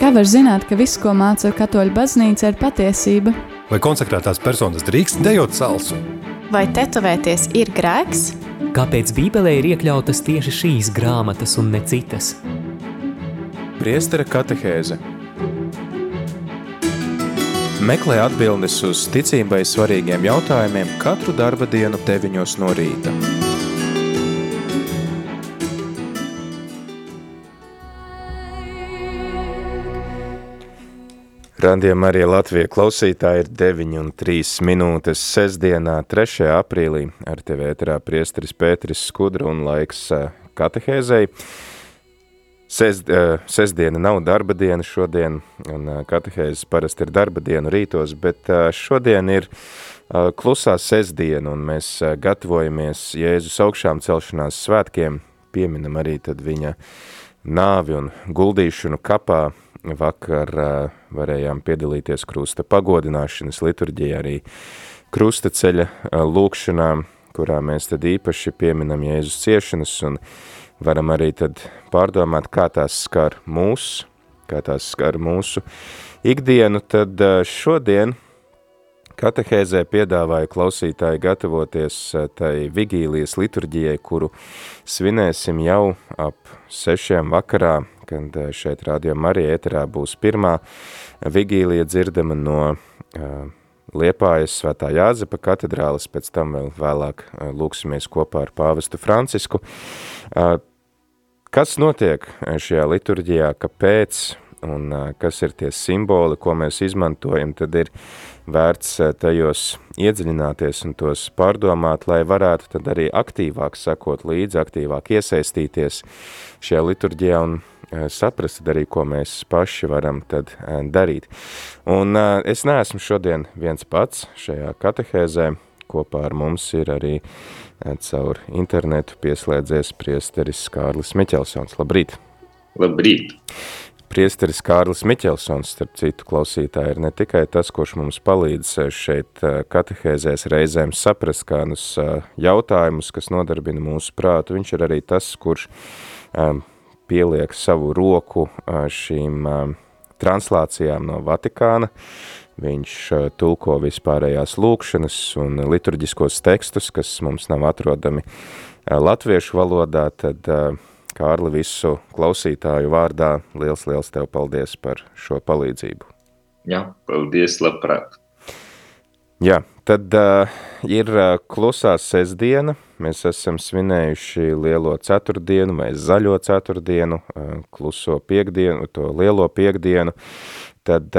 Kā var zināt, ka viss, ko māca katoļu baznīca, ir patiesība? Vai konsekrētās personas drīkst dejot salsu? Vai tetovēties ir grēks? Kāpēc Bībelē ir iekļautas tieši šīs grāmatas un ne citas? Priestera katehēze. Meklē atbildes uz ticībai svarīgiem jautājumiem katru darba dienu 9 no rīta. Radījumā arī Latvija klausītāji ir 9:03 sestdienā, 3. aprīlī. Ar tevi ēterā priesteris Pēteris Skudra un laiks katehēzei. Sestdiena nav darba diena šodien, un katehēzes parasti ir darba dienu rītos, bet šodien ir klusā sestdiena, un mēs gatavojamies Jēzus augšām celšanās svētkiem, pieminam arī tad viņa nāvi un guldīšanu kapā. Vakar varējām piedalīties krusta pagodināšanas liturģijā, arī krusta ceļa lūkšanām, kurā mēs tad īpaši pieminam Jēzus ciešanas un varam arī tad pārdomāt, kā tās skar mūs, kā tās skar mūsu ikdienu. Tad šodien katehēzē piedāvāju klausītāji gatavoties tai vigīlijas liturģijai, kuru svinēsim jau ap 6 vakarā, kad šeit Radījumā arī ēterā būs pirmā vigīlija dzirdama no Liepājas Svētā Jāzepa katedrāles, pēc tam vēl vēlāk lūksimies kopā ar pāvestu Francisku. Kas notiek šajā liturģijā, kāpēc un kas ir tie simboli, ko mēs izmantojam, tad ir vērts tajos iedziļināties un tos pārdomāt, lai varētu tad arī aktīvāk sekot līdzi, aktīvāk iesaistīties šajā liturģijā un saprast arī, ko mēs paši varam tad darīt. Un es neesmu šodien viens pats šajā katehēzē, kopā ar mums ir arī caur internetu pieslēdzies priesteris Kārlis Miķelsons. Labrīt! Labrīt! Priesteris Kārlis Miķelsons, starp citu klausītāji, ir ne tikai tas, kurš mums palīdz šeit katehēzēs reizēm saprast kādus jautājumus, kas nodarbina mūsu prātu. Viņš ir arī tas, kurš pieliek savu roku šīm translācijām no Vatikāna. Viņš tulko vispārējās lūkšanas un liturģiskos tekstus, kas mums nav atrodami latviešu valodā, tad Kārli, visu klausītāju vārdā liels tev paldies par šo palīdzību. Jā, paldies, labprāt. Jā, tad ir klusā sestdiena. Mēs esam svinējuši lielo ceturtdienu vai zaļo ceturtdienu, kluso piekdienu, to lielo piekdienu. Tad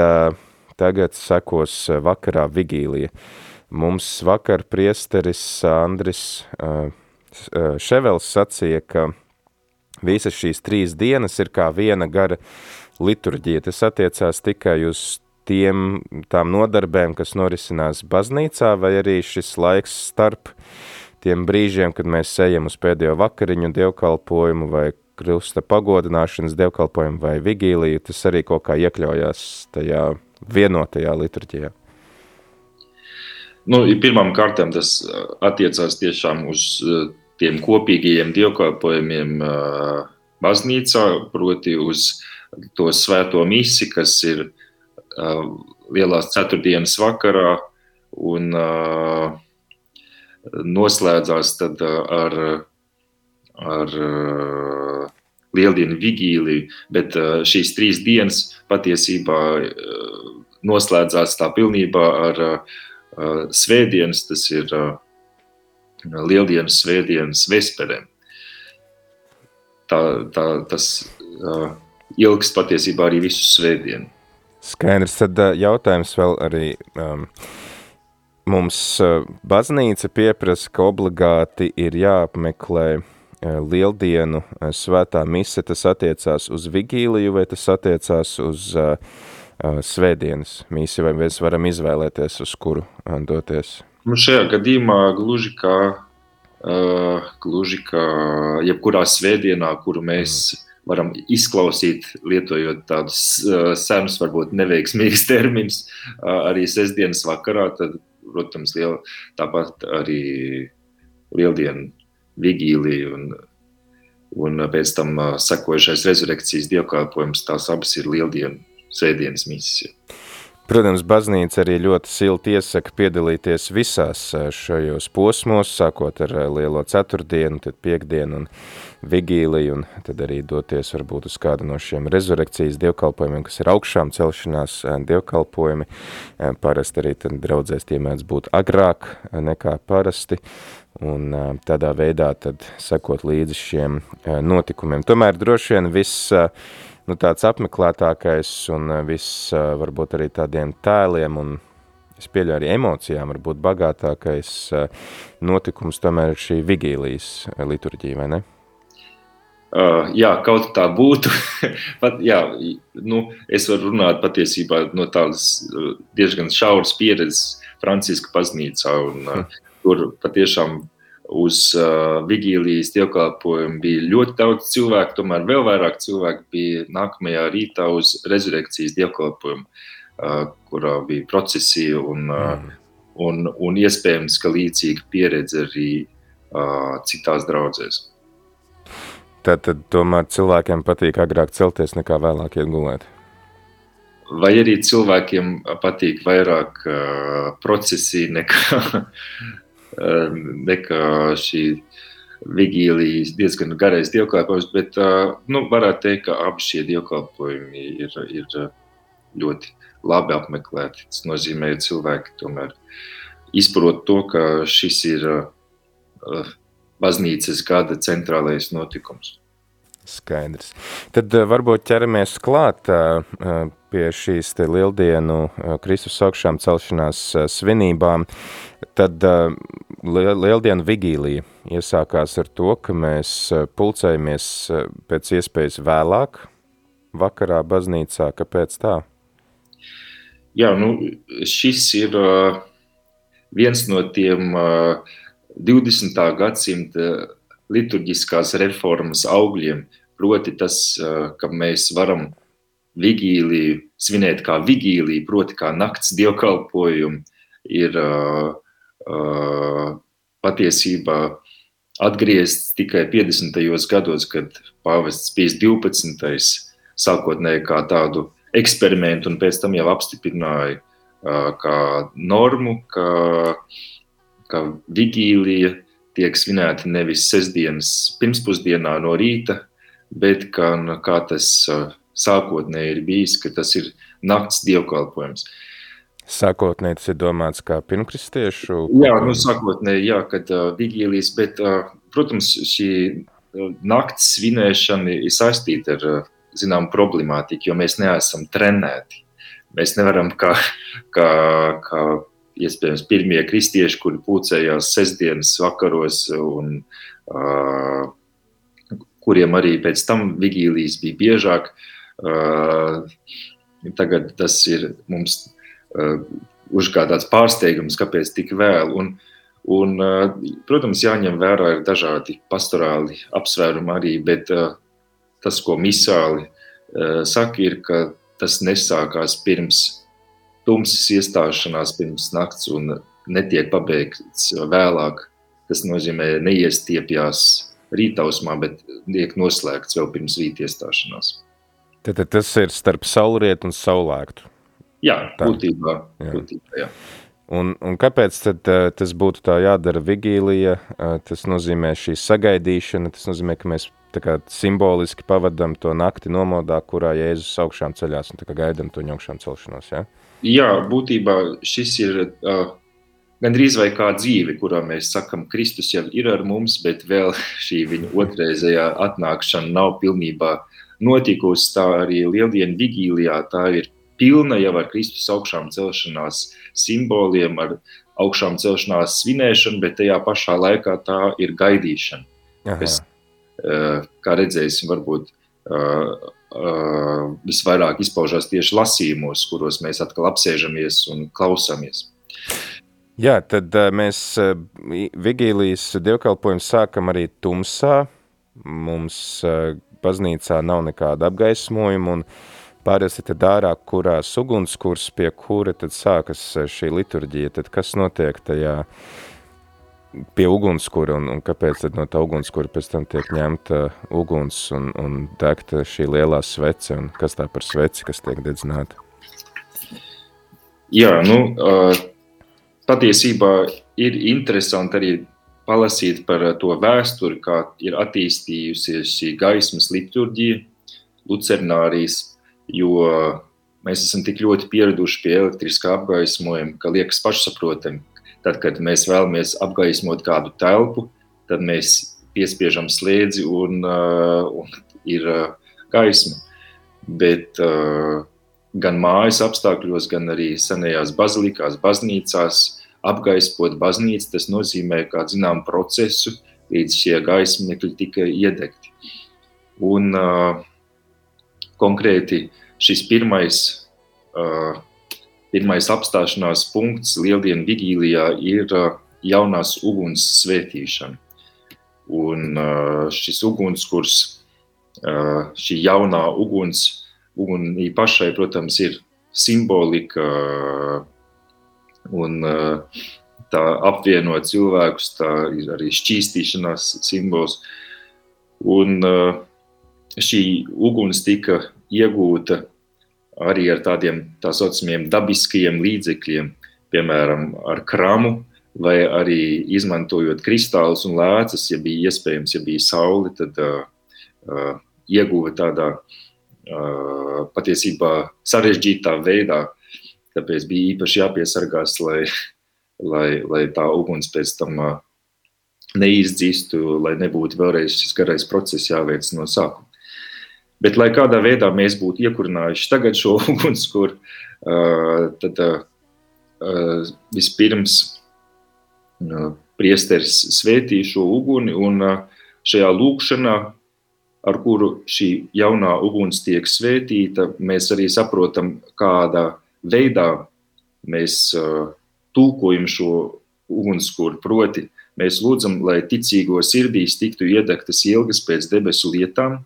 tagad sekos vakarā vigīlija. Mums vakar priesteris Andris Ševels sacīja, ka visas šīs 3 dienas ir kā viena gara liturģija. Tas attiecās tikai uz tām nodarbēm, kas norisinās baznīcā, vai arī šis laiks starp tiem brīžiem, kad mēs ejam uz pēdējo vakariņu dievkalpojumu vai krusta pagodināšanas dievkalpojumu vai vigīliju, tas arī kaut kā iekļaujās tajā vienotajā liturģijā. Pirmām kārtām tas attiecās tiešām uz tiem kopīgajiem dievkalpojumiem baznīcā, proti uz to svēto misi, kas ir lielās ceturtdienas vakarā un noslēdzās tad ar lieldienu vigīliju, bet šīs 3 dienas patiesībā noslēdzās tā pilnībā ar svētdienas, tas ir lieldienas svētdienas vesperēm. Tas ilgs patiesībā arī visu svētdienu. Skaidrs, tad jautājums vēl arī mums baznīca pieprasa, ka obligāti ir jāapmeklē lieldienu svētā mise, tas attiecās uz vigīliju vai tas attiecās uz svētdienas misi, vai mēs varam izvēlēties, uz kuru doties? Šajā gadījumā gluži kā jebkurā svētdienā, kuru mēs varam izklausīt, lietojot tādus senus, varbūt neveiksmīgus terminus, arī sestdienas vakarā, tad, protams, tāpat arī lieldienu vigīlija un pēc tam sekojušais rezurekcijas dievkalpojums, tās abas ir lieldienu svētdienas misiju. Protams, baznīca arī ļoti silti iesaka piedalīties visās šajos posmos, sākot ar Lielo ceturtdienu, tad piekdienu un vigīliju, un tad arī doties varbūt uz kādu no šiem rezurekcijas dievkalpojumiem, kas ir augšām celšanās dievkalpojumi. Parasti arī tad draudzēs tie mēdz būt agrāk nekā parasti, un tādā veidā tad sekot līdzi šiem notikumiem. Tomēr droši vien viss tāds apmeklētākais un viss varbūt arī tādiem tēliem un es pieļauju arī emocijām varbūt bagātākais notikums tomēr ir šī vigīlijas liturģija, vai ne? Jā, kaut tā būtu. Pat, jā, es varu runāt patiesībā no tādas diezgan šauras pieredzes Franciska baznīcā, un tur patiešām uz vigīlijas dievkalpojumu bija ļoti daudz cilvēku, tomēr vēl vairāk cilvēku bija nākamajā rītā uz rezurekcijas dievkalpojumu, kurā bija procesija un iespējams, ka līdzīga pieredze arī citās draudzēs. Tad tomēr cilvēkiem patīk agrāk celties nekā vēlāk iet gulēt? Vai arī cilvēkiem patīk vairāk procesija nekā šī vigīlijas diezgan garais dievkalpojums, bet varētu teikt, ka abi šie dievkalpojumi ir ļoti labi apmeklēti. Tas nozīmē, ka cilvēki tomēr izprot to, ka šis ir baznīcas gada centrālais notikums. Skaidrs. Tad varbūt ķeramies klāt pie šīs te lieldienu Kristus augšām celšanās svinībām. Tad lieldienu vigīlija iesākās ar to, ka mēs pulcējamies pēc iespējas vēlāk vakarā baznīcā. Kāpēc tā? Jā, šis ir viens no tiem 20. gadsimta liturģiskās reformas augļiem, proti tas, ka mēs varam vigīliju svinēt kā vigīliju, proti kā nakts dievkalpojumu, ir patiesībā atgriezts tikai 50. gados, kad pāvests Pijs 12. sākotnēji kā tādu eksperimentu un pēc tam jau apstiprināja kā normu, ka vigīlija tiek svinēta nevis sestdienas pirmspusdienā no rīta, bet kā tas sākotnēji ir bijis, ka tas ir nakts dievkalpojums. Sākotnēji tas ir domāts kā pirmkristiešu? Jā, sākotnēji, jā, kad vigīlijas, bet, protams, šī nakts svinēšana ir saistīta ar, zinām, problemātiku, jo mēs neesam trenēti. Mēs nevaram kā iespējams pirmie kristieši, kuri pulcējās sestdienas vakaros un kuriem arī pēc tam vigīlijas bija biežāk. Tagad tas ir mums uzgādāts pārsteigums, kāpēc tik vēl. Un, protams, jāņem vērā ir dažādi pastorāli apsvērumi arī, bet tas, ko misāli saka, ir, ka tas nesākās pirms tumsas iestāšanās pirms nakts un netiek pabeigts vēlāk. Tas nozīmē neiestiepjās rītausmā, bet tiek noslēgts vēl pirms rīta iestāšanās. Tad tas ir starp saulrietu un saulēktu? Jā, būtībā, jā. Un kāpēc tad tas būtu tā jādara vigīlija? Tas nozīmē šī sagaidīšana, tas nozīmē, ka mēs tā kā simboliski pavadam to nakti nomodā, kurā Jēzus augšām ceļās un tā kā gaidam to augšām celšanos, jā? Jā, būtībā šis ir gandrīz vai kā dzīve, kurā mēs sakam, Kristus jau ir ar mums, bet vēl šī viņa otrreizējā atnākšana nav pilnībā notikusi. Tā arī lieldienu vigīlijā, tā ir pilna jau ar Kristus augšām celšanās simboliem, ar augšām celšanās svinēšanu, bet tajā pašā laikā tā ir gaidīšana. Kas, kā redzēsim, varbūt visvairāk izpaužās tieši lasījumos, kuros mēs atkal apsēžamies un klausāmies. Jā, tad mēs vigīlijas dievkalpojumu sākam arī tumsā. Mums baznīcā nav nekāda apgaismojuma un pārēsi tad ārā, kurās ugunskurs, pie kura tad sākas šī liturģija. Tad kas notiek tajā pie ugunskura, un kāpēc tad no tā ugunskura pēc tam tiek ņemta uguns un degta šī lielā svece, un kas tā par sveci, kas tiek dedzināta? Jā, patiesībā ir interesanti arī palasīt par to vēsturi, kā ir attīstījusies šī gaismas liturģija, lucernārijas, jo mēs esam tik ļoti pieraduši pie elektriskā apgaismojuma, ka liekas pašsaprotami. Tad, kad mēs vēlamies apgaismot kādu telpu, tad mēs piespiežam slēdzi un ir gaisma. Bet gan mājas apstākļos, gan arī senajās bazilikās, baznīcās apgaismot baznīcu, tas nozīmē kādu zinām procesu, līdz šie gaismekļi tika iedegti. Un konkrēti šis pirmais apstāšanās punkts Lieldienu vigīlijā ir jaunās uguns svētīšana. Un šis ugunskurs, šī jaunā ugunī pašai, protams, ir simbolika un tā apvieno cilvēkus, tā ir arī šķīstīšanās simbols. Un šī uguns tika iegūta arī ar tādiem tā saucamiem dabiskajiem līdzekļiem, piemēram, ar kramu, vai arī izmantojot kristālus un lēcas, ja bija iespējams, ja bija saule, tad ieguva tādā patiesībā sarežģītā veidā, tāpēc bija īpaši jāpiesargās, lai tā uguns pēc tam neizdzistu, lai nebūtu vēlreiz šis garais process jāveic no sākuma. Bet, lai kādā veidā mēs būtu iekurinājuši tagad šo ugunskuru, tad vispirms priesteris svētī šo uguni, un šajā lūkšanā, ar kuru šī jaunā uguns tiek svētīta, mēs arī saprotam, kādā veidā mēs tulkojam šo ugunskuru, proti mēs lūdzam, lai ticīgo sirdīs tiktu iedegtas ilgas pēc debesu lietām,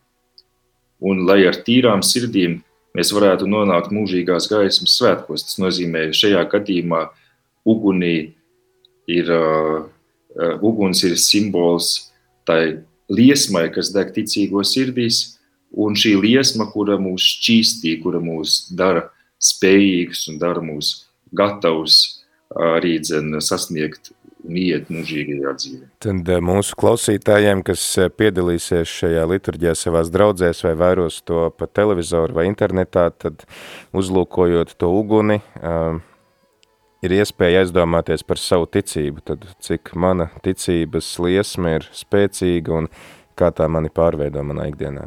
un lai ar tīrām sirdīm mēs varētu nonākt mūžīgās gaismas svētkos. Tas nozīmē, šajā gadījumā uguns ir simbols tai liesmai, kas deg ticīgo sirdīs, un šī liesma, kura mūs šķīstī, kura mūs dara spējīgus un dara mūs gatavus arī sasniegt un iet mūžīgajā dzīvē. Tad mūsu klausītājiem, kas piedalīsies šajā liturģijā savās draudzēs vai vēros to pa televizoru vai internetā, tad uzlūkojot to uguni, ir iespēja aizdomāties par savu ticību, tad cik mana ticības liesma ir spēcīga un kā tā mani pārveido manā ikdienā.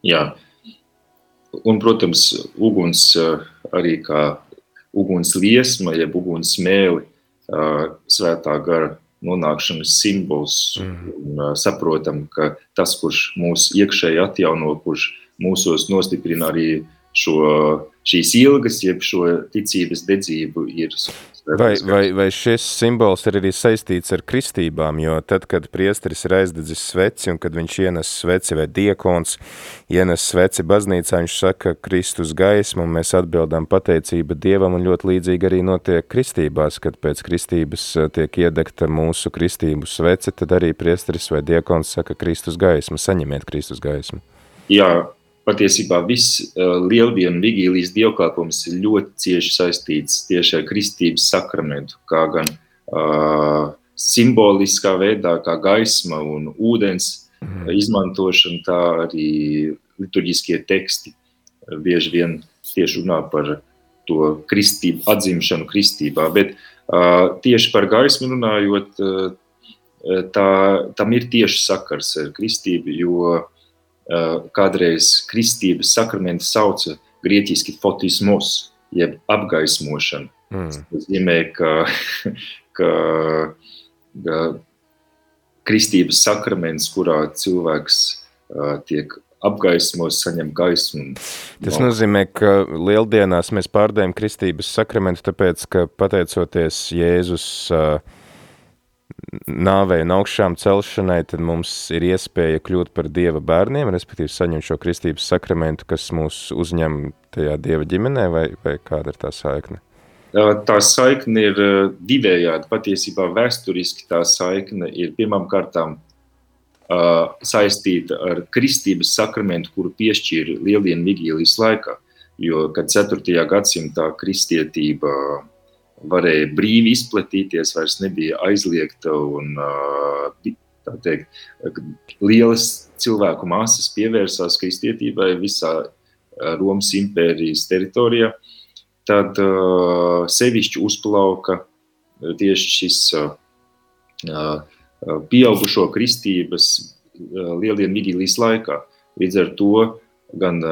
Jā, un, protams, uguns arī kā uguns liesma, jeb uguns smēli, svētā gara nonākšanas simbols, un saprotam, ka tas, kurš mūs iekšēji atjauno, kurš mūsos nostiprina arī šīs ilgas, jeb šo ticības dedzību ir. Vai šis simbols ir arī saistīts ar kristībām, jo tad, kad priesteris ir aizdedzis sveci, un kad viņš ienes sveci vai diekons ienes sveci baznīcā, viņš saka Kristus gaismu, un mēs atbildām pateicība Dievam, un ļoti līdzīgi arī notiek kristībās, kad pēc kristības tiek iedegta mūsu kristību svece, tad arī priesteris vai diekons saka Kristus gaismu, saņemiet Kristus gaismu. Jā, patiesībā viss Lieldienu vigīlijas dievkalpojums ir ļoti cieši saistīts tieši ar kristības sakramentu, kā gan simboliskā veidā, kā gaisma un ūdens izmantošana, tā arī liturģiskie teksti bieži vien tieši runā par to kristību, atzimšanu kristībā. Bet tieši par gaismu runājot, tam ir tieši sakars ar kristību, jo kādreiz kristības sakramenti sauca grieķiski fotismos, jeb apgaismošana. Tas nozīmē, ka kristības sakraments, kurā cilvēks tiek apgaismos, saņem gaismu. Tas nozīmē, ka lieldienās mēs pārdējam kristības sakramentu, tāpēc, ka pateicoties Jēzus nāvei un augšām celšanai, tad mums ir iespēja kļūt par Dieva bērniem, respektīvi saņemt šo kristības sakramentu, kas mūs uzņem tajā Dieva ģimenē, vai kāda ir tā saikne? Tā saikne ir divējādi. Patiesībā vēsturiski tā saikne ir pirmām kārtām saistīta ar kristības sakramentu, kuru piešķīra Lieldienu vigīlijas laikā. Jo, kad 4. gadsimtā kristietība varēja brīvi izplatīties, vairs nebija aizliegta un tā teikt, lielas cilvēku masas pievērsās kristietībai visā Romas impērijas teritorijā, tad sevišķi uzplauka tieši šis pieaugušo kristības Lieldienu vigīlijas laikā. Līdz ar to gan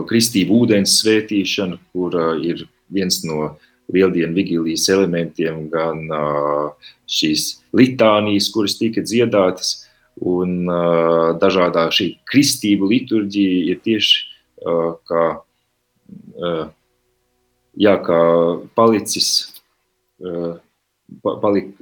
kristību ūdens svētīšana, kur ir viens no Lieldienu vigīlijas elementiem, gan šīs litānijas, kuras tika dziedātas, un dažādā šī kristību liturģija ir tieši kā palicis,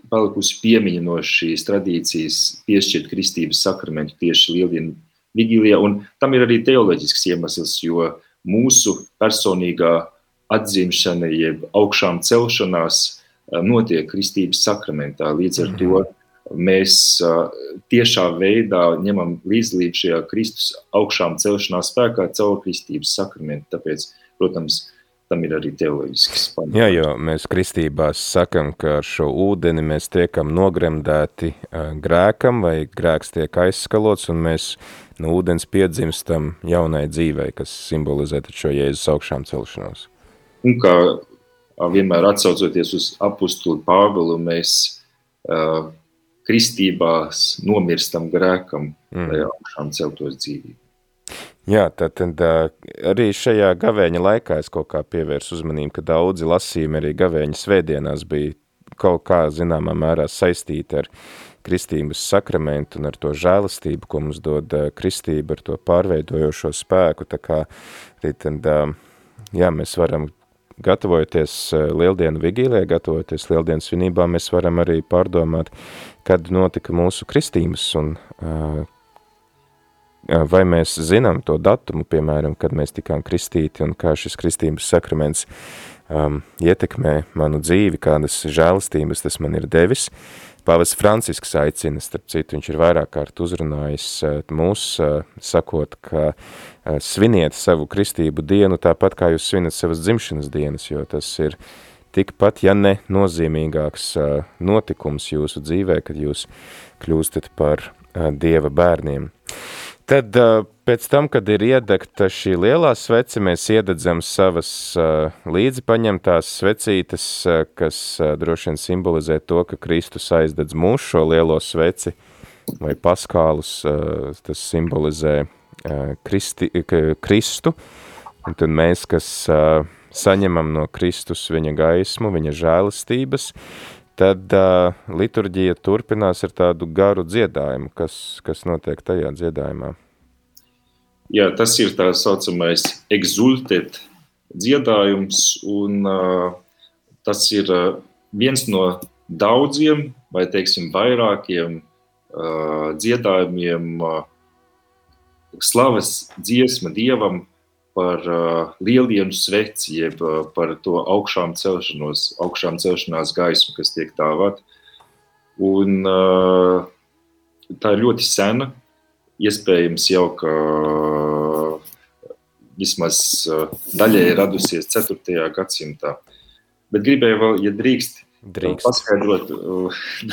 palikusi piemiņa no šīs tradīcijas piešķirt kristības sakramentu tieši Lieldienu vigīlijā, un tam ir arī teoloģisks iemesls, jo mūsu personīgā atzimšana, jeb augšām celšanās notiek kristības sakramentā. Līdz ar to mēs tiešā veidā ņemam līdzdalību šajā Kristus augšām celšanās spēkā caur kristības sakramentu. Tāpēc, protams, tam ir arī teoloģisks pamats. Jā, jo mēs kristībās sakam, ka ar šo ūdeni mēs tiekam nogremdēti grēkam, vai grēks tiek aizskalots, un mēs no ūdens piedzimstam jaunai dzīvei, kas simbolizē šo Jēzus augšām celšanos. Un kā vienmēr atsaucoties uz apustuli Pāvilu, mēs kristībās nomirstam grēkam, lai augšām celtos dzīvību. Jā, tad arī šajā gavēņa laikā es kaut kā pievērsu uzmanību, ka daudzi lasījumi arī gavēņa svētdienās bija kaut kā zināmā mērā saistīti ar kristības sakramentu un ar to žēlastību, ko mums dod kristība, ar to pārveidojošo spēku. Tā kā arī tad, jā, mēs varam, gatavojoties Lieldienu vigīlijai, gatavojoties Lieldienu svinībām, mēs varam arī pārdomāt, kad notika mūsu kristības un vai mēs zinām to datumu, piemēram, kad mēs tikām kristīti un kā šis kristības sakraments ietekmē manu dzīvi, kādas žēlastības tas man ir devis. Pāvests Francisks aicina, starp citu, viņš ir vairāk kārt uzrunājis mūs, sakot, ka sviniet savu kristību dienu tāpat, kā jūs svinat savas dzimšanas dienas, jo tas ir tikpat, ja ne nozīmīgāks notikums jūsu dzīvē, kad jūs kļūstat par Dieva bērniem. Tad pēc tam, kad ir iedegta šī lielā svece, mēs iededzam savas līdzi paņemtās svecītes, kas droši vien simbolizē to, ka Kristus aizdedz mūsu šo lielo sveci, vai paskālus, tas simbolizē Kristu, un tad mēs, kas saņemam no Kristus viņa gaismu, viņa žēlastības, tad liturģija turpinās ar tādu garu dziedājumu, kas notiek tajā dziedājumā. Jā, tas ir tā saucamais exultet dziedājums, un tas ir viens no daudziem, vai teiksim vairākiem dziedājumiem, slavas dziesma Dievam par Lieldienu sveci, jeb par to augšām celšanās gaismu, kas tiek dāvāt. Un tā ir ļoti sena, iespējams jau, ka vismaz daļai radusies 4. gadsimtā. Bet gribēju vēl, ja drīkst. Paskaidrot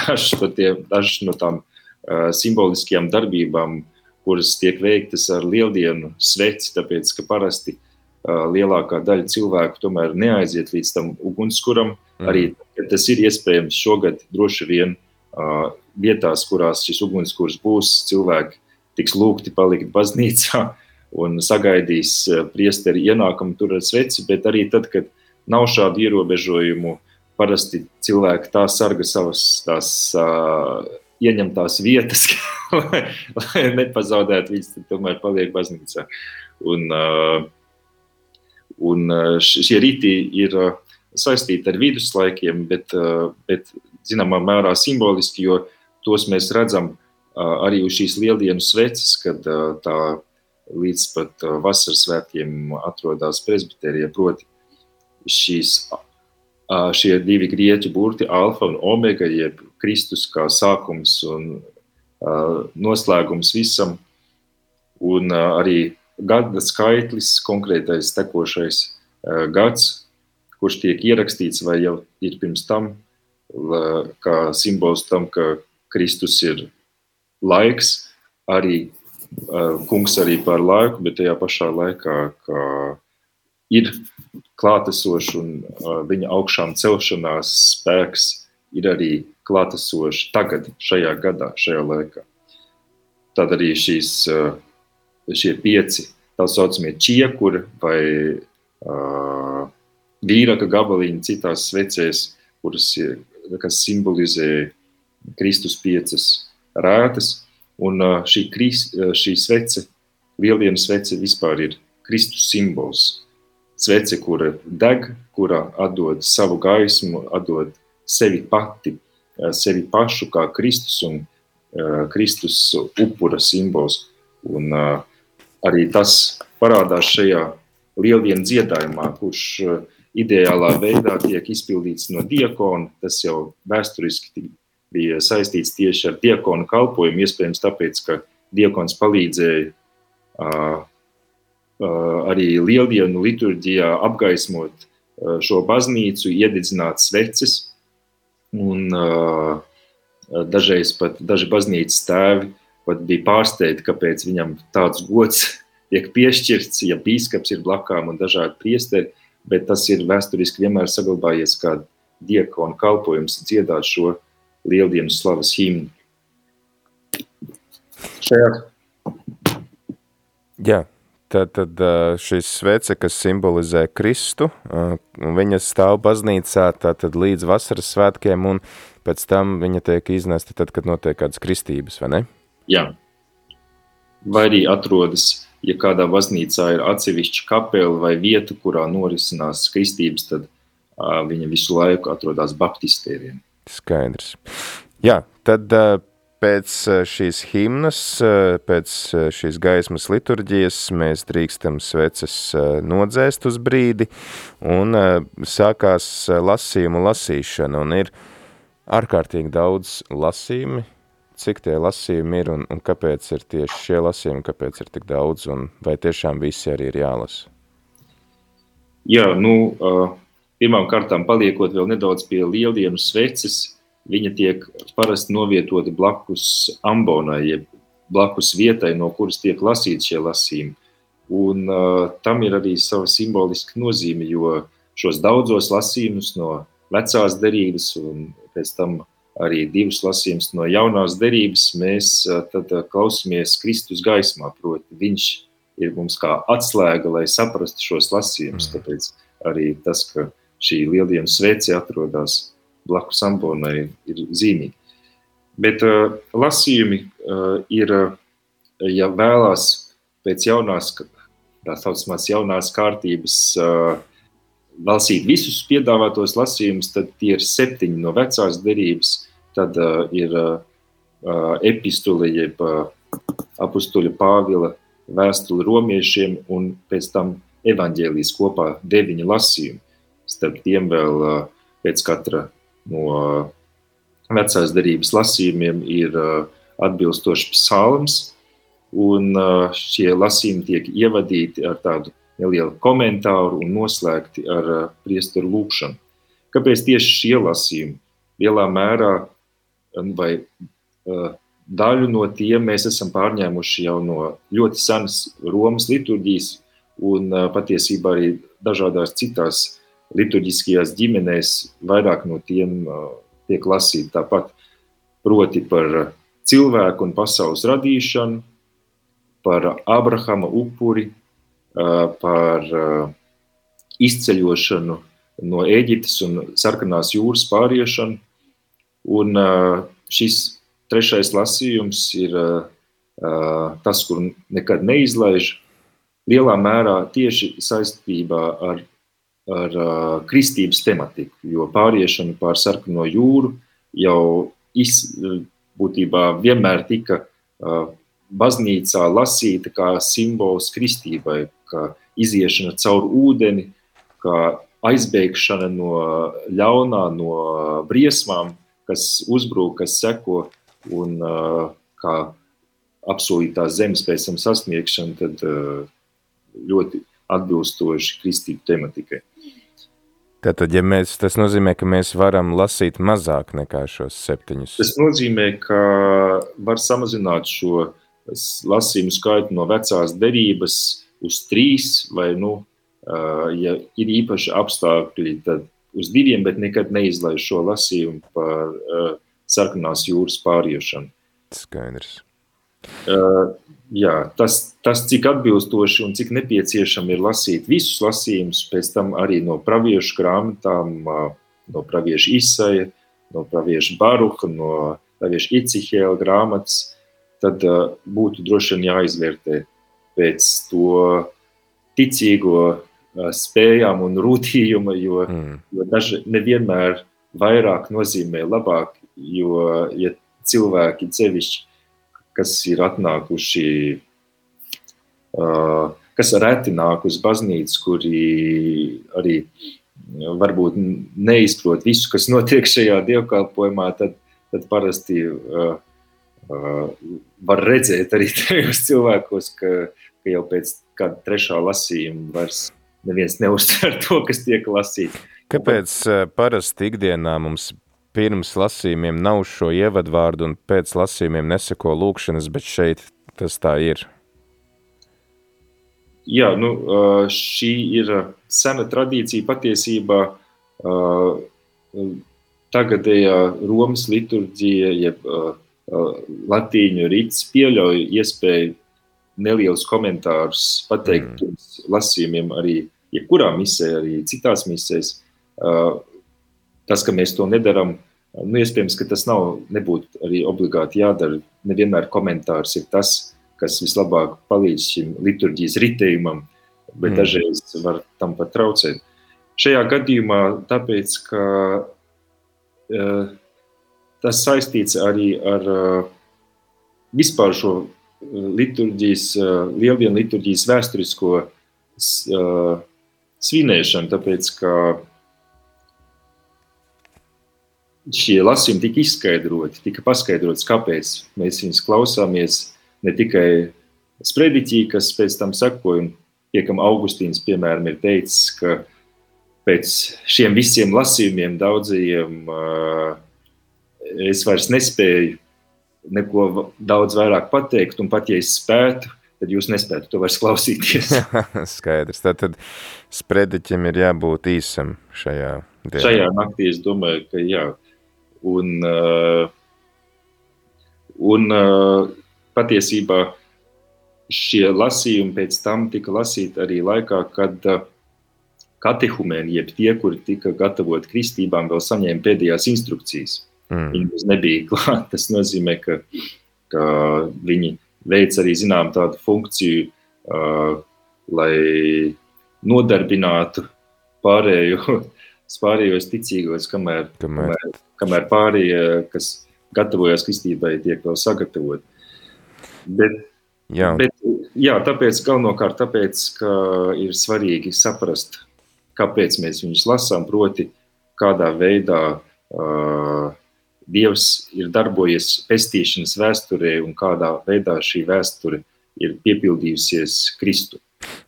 dažas no tām simboliskajām darbībām, kuras tiek veiktas ar Lieldienu sveci, tāpēc, ka parasti lielākā daļa cilvēku tomēr neaiziet līdz tam ugunskuram. Arī tas ir iespējams šogad droši vien vietās, kurās šis ugunskurs būs, cilvēki tiks lūgti palikt baznīcā un sagaidīs priesteri ienākumu tur ar sveci, bet arī tad, kad nav šādu ierobežojumu, parasti cilvēki tā sarga savas tās ieņemtās vietas, lai nepazaudētu viņas, tad tomēr paliek baznīcā. Un šie rīti ir saistīti ar viduslaikiem, bet zināmā mērā simboliski, jo tos mēs redzam arī uz šīs Lieldienu sveces, kad tā līdz pat vasaras svētkiem atrodas presbiterija, proti šīs šie divi grieķu burti, alfa un omega, jeb Kristus kā sākums un noslēgums visam, un arī gada skaitlis, konkrētais tekošais gads, kurš tiek ierakstīts vai jau ir pirms tam, kā simbols tam, ka Kristus ir laiks, arī kungs arī par laiku, bet tajā pašā laikā, ka ir klātesošs un viņa augšām celšanās spēks ir arī klātesošs tagad, šajā gadā, šajā laikā. Tad arī šie 5, tā saucamie čiekuri vai vīraka gabaliņi citās svecēs, kas simbolizē Kristus 5 rētas, un šī svece, lieldienu svece vispār ir Kristus simbols. Svece, kura deg, kura atdod savu gaismu, atdod sevi pati, sevi pašu kā Kristus un Kristus upura simbols. Un arī tas parādās šajā lieldienu dziedājumā, kurš ideālā veidā tiek izpildīts no diakona. Tas jau vēsturiski bija saistīts tieši ar diakonu kalpojumu, iespējams tāpēc, ka diakons palīdzēja arī lieldienu liturģijā apgaismot šo baznīcu, iededzināt sveces, un dažreiz pat daži baznīcas tēvi pat bija pārsteigti, kāpēc viņam tāds gods tiek piešķirts, ja bīskaps ir blakām un dažādi priesteri, bet tas ir vēsturiski vienmēr saglabājies kā diakona kalpojums dziedāt šo lieldienu slavas himnu. Jā. Tad šis svece, kas simbolizē Kristu, viņa stāv baznīcā tātad līdz vasaras svētkiem, un pēc tam viņa tiek iznesta tad, kad notiek kādas kristības, vai ne? Jā. Vai arī atrodas, ja kādā baznīcā ir atsevišķa kapela vai vieta, kurā norisinās kristības, tad viņa visu laiku atrodas baptistēriem. Skaidrs. Jā, tad pēc šīs himnas, pēc šīs gaismas liturģijas mēs drīkstam sveces nodzēst uz brīdi, un sākās lasījumu lasīšana, un ir ārkārtīgi daudz lasījumi. Cik tie lasījumi ir, un kāpēc ir tieši šie lasījumi, kāpēc ir tik daudz, un vai tiešām visi arī ir jālasa? Jā, pirmām kārtām paliekot vēl nedaudz pie lieldienu sveces, viņa tiek parasti novietota blakus ambonai, jeb blakus vietai, no kuras tiek lasīti šie lasījumi. Un tam ir arī sava simboliska nozīme, jo šos daudzos lasījumus no vecās derības un pēc tam arī 2 lasījumus no jaunās derības mēs tad klausamies Kristus gaismā, proti viņš ir mums kā atslēga, lai saprastu šos lasījumus, tāpēc arī tas, ka šī lieldienu svece atrodas blakus ambonai ir zīmīgi. Bet lasījumi ir, ja vēlās pēc tā saucamās jaunās kārtības lasīt visus piedāvātos lasījumus, tad tie ir 7 no vecās derības, tad ir epistule, jeb apustuļa Pāvila vēstule romiešiem, un pēc tam evaņģēlijas kopā 9 lasījumi. Starp tiem vēl pēc katra no vecās derības lasījumiem ir atbilstošs psalms, un šie lasījumi tiek ievadīti ar tādu nelielu komentāru un noslēgti ar priesteru lūkšanu. Kāpēc tieši šie lasījumi? Lielā mērā vai daļu no tiem mēs esam pārņēmuši jau no ļoti senas Romas liturģijas, un patiesībā arī dažādās citās liturģiskajās ģimenēs vairāk no tiem tiek lasīti tāpat, proti par cilvēku un pasaules radīšanu, par Abrahama upuri, par izceļošanu no Ēģiptes un Sarkanās jūras pāriešanu. Un šis 3. lasījums ir tas, kur nekad neizlaiž, lielā mērā tieši saistībā ar kristības tematiku, jo pāriešana pār Sarkano jūru jau būtībā vienmēr tika baznīcā lasīta kā simbols kristībai, kā iziešana caur ūdeni, kā aizbēgšana no ļaunā, no briesmām, kas uzbrūk, kas seko, un kā apsolītās zemes pēc tam sasniegšana, tad ļoti atbilstoši kristīgu tematikai. Tātad, ja tas nozīmē, ka mēs varam lasīt mazāk nekā šos 7. Tas nozīmē, ka var samazināt šo lasījumu skaitu no vecās derības uz 3, vai, ja ir īpaši apstākļi, tad uz 2, bet nekad neizlaiž šo lasījumu par sarkanās jūras pāriešanu. Skaidrs. Jā, tas cik atbilstoši un cik nepieciešami ir lasīt visus lasījumus, pēc tam arī no praviešu grāmatām, no pravieša Isaja, no pravieša Baruha, no pravieša Icihēla grāmatas, tad būtu droši vien jāizvērtē pēc to ticīgo spējām un rūtījuma, jo daži nevienmēr vairāk nozīmē labāk, jo ja cilvēki sevišķi, kas ir atnākuši, kas reti nāk uz baznīcu, kuri arī varbūt neizprot visu, kas notiek šajā dievkalpojumā, tad parasti var redzēt arī tajos cilvēkos, ka jau pēc kāda 3. lasījuma vairs neviens neuztver to, kas tiek lasīts. Kāpēc parasti ikdienā mums pirms lasījumiem nav šo ievadvārdu un pēc lasījumiem neseko lūkšanas, bet šeit tas tā ir? Jā, šī ir sena tradīcija patiesībā. Tagadējā Romas liturģija, jeb latīņu rits pieļauj iespēju nelielus komentārus pateikt pirms lasījumiem arī jebkurā misē, arī citās misēs. Tas, ka mēs to nedaram, iespējams, ka tas nebūtu arī obligāti jādara. Nevienmēr komentārs ir tas, kas vislabāk palīdz šim liturģijas ritējumam, bet dažreiz var tam pat traucēt. Šajā gadījumā tāpēc, ka tas saistīts arī ar vispār šo liturģijas, lieldienu liturģijas vēsturisko svinēšanu, tāpēc, ka šie lasījumi tika paskaidrots, kāpēc mēs viņus klausāmies, ne tikai sprediķī, kas pēc tam sekoja, un piekam Augustīns, piemēram, ir teicis, ka pēc šiem visiem lasījumiem daudzajiem es vairs nespēju neko daudz vairāk pateikt, un pat ja es spētu, tad jūs nespētu to vairs klausīties. Skaidrs, tātad sprediķim ir jābūt īsam šajā dienā. Šajā naktī es domāju, ka jā. Un patiesībā šie lasījumi pēc tam tika lasīti arī laikā, kad katehumēni, jeb tie, kuri tika gatavoti kristībām, vēl saņēma pēdējās instrukcijas. Viņi nebija klāt. Tas nozīmē, ka viņi veic arī zinām tādu funkciju, lai nodarbinātu pārējos ticīgos, kamēr pārējie, kas gatavojas kristībai, tiek vēl sagatavot. Bet tāpēc, galvenokārt tāpēc, ka ir svarīgi saprast, kāpēc mēs viņus lasām, proti, kādā veidā Dievs ir darbojies pestīšanas vēsturē un kādā veidā šī vēsture ir piepildījusies Kristu.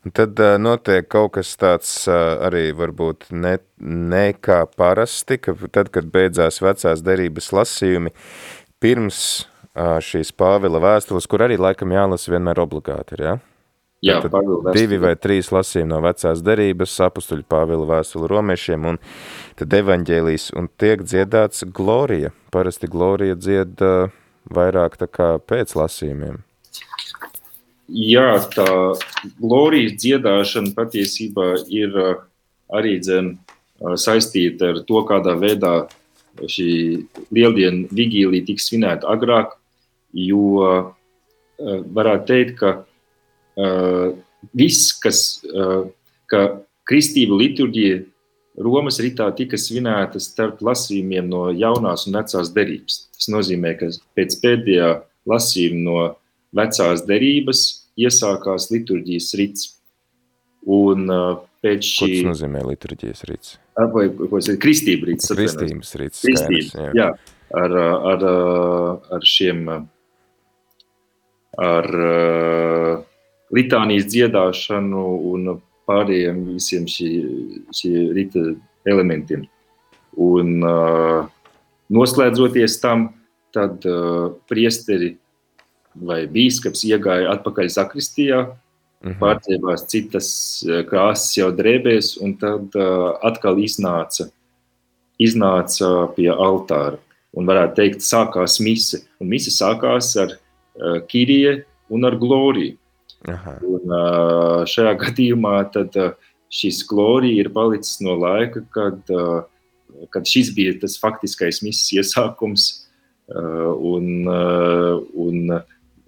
Tad notiek kaut kas tāds arī varbūt ne kā parasti, ka tad, kad beidzās vecās derības lasījumi, pirms šīs Pāvila vēstules, kur arī laikam jālasa vienmēr obligāti ir, ja? Jā, Pāvila vēstule. 2 vai 3 lasījumi no vecās derības, apustuļu Pāvila vēstule romiešiem, un tad evaņģēlijs, un tiek dziedāts glorija. Parasti glorija dzied vairāk tā kā pēc lasījumiem. Jā, tā glorijas dziedāšana patiesībā ir arī saistīta ar to, kādā veidā šī lieldienu vigīlija tiks svinēta agrāk, jo varētu teikt, ka viss, ka kristība liturģija Romas ritā tika svinēta starp lasījumiem no jaunās un vecās derības. Tas nozīmē, ka pēc pēdējā lasījuma no vecās derības iesākās liturģijas rits. Un pēc Ko šī... tas nozīmē liturģijas rīts? Vai, ko es kristība rīts. Kristības rīts, skaidrs. Jā, ar šiem, ar litānijas dziedāšanu un pārējiem visiem šī rīta elementiem. Un noslēdzoties tam, tad priesteri vai bīskaps iegāja atpakaļ sakristijā, pārķēbās citas krāsas jau drēbēs, un tad atkal iznāca pie altāra. Un varētu teikt, sākās mise. Un mise sākās ar Kirije un ar gloriju. Un šajā gadījumā tad šis glorija ir palicis no laika, kad šis bija tas faktiskais mises iesākums, un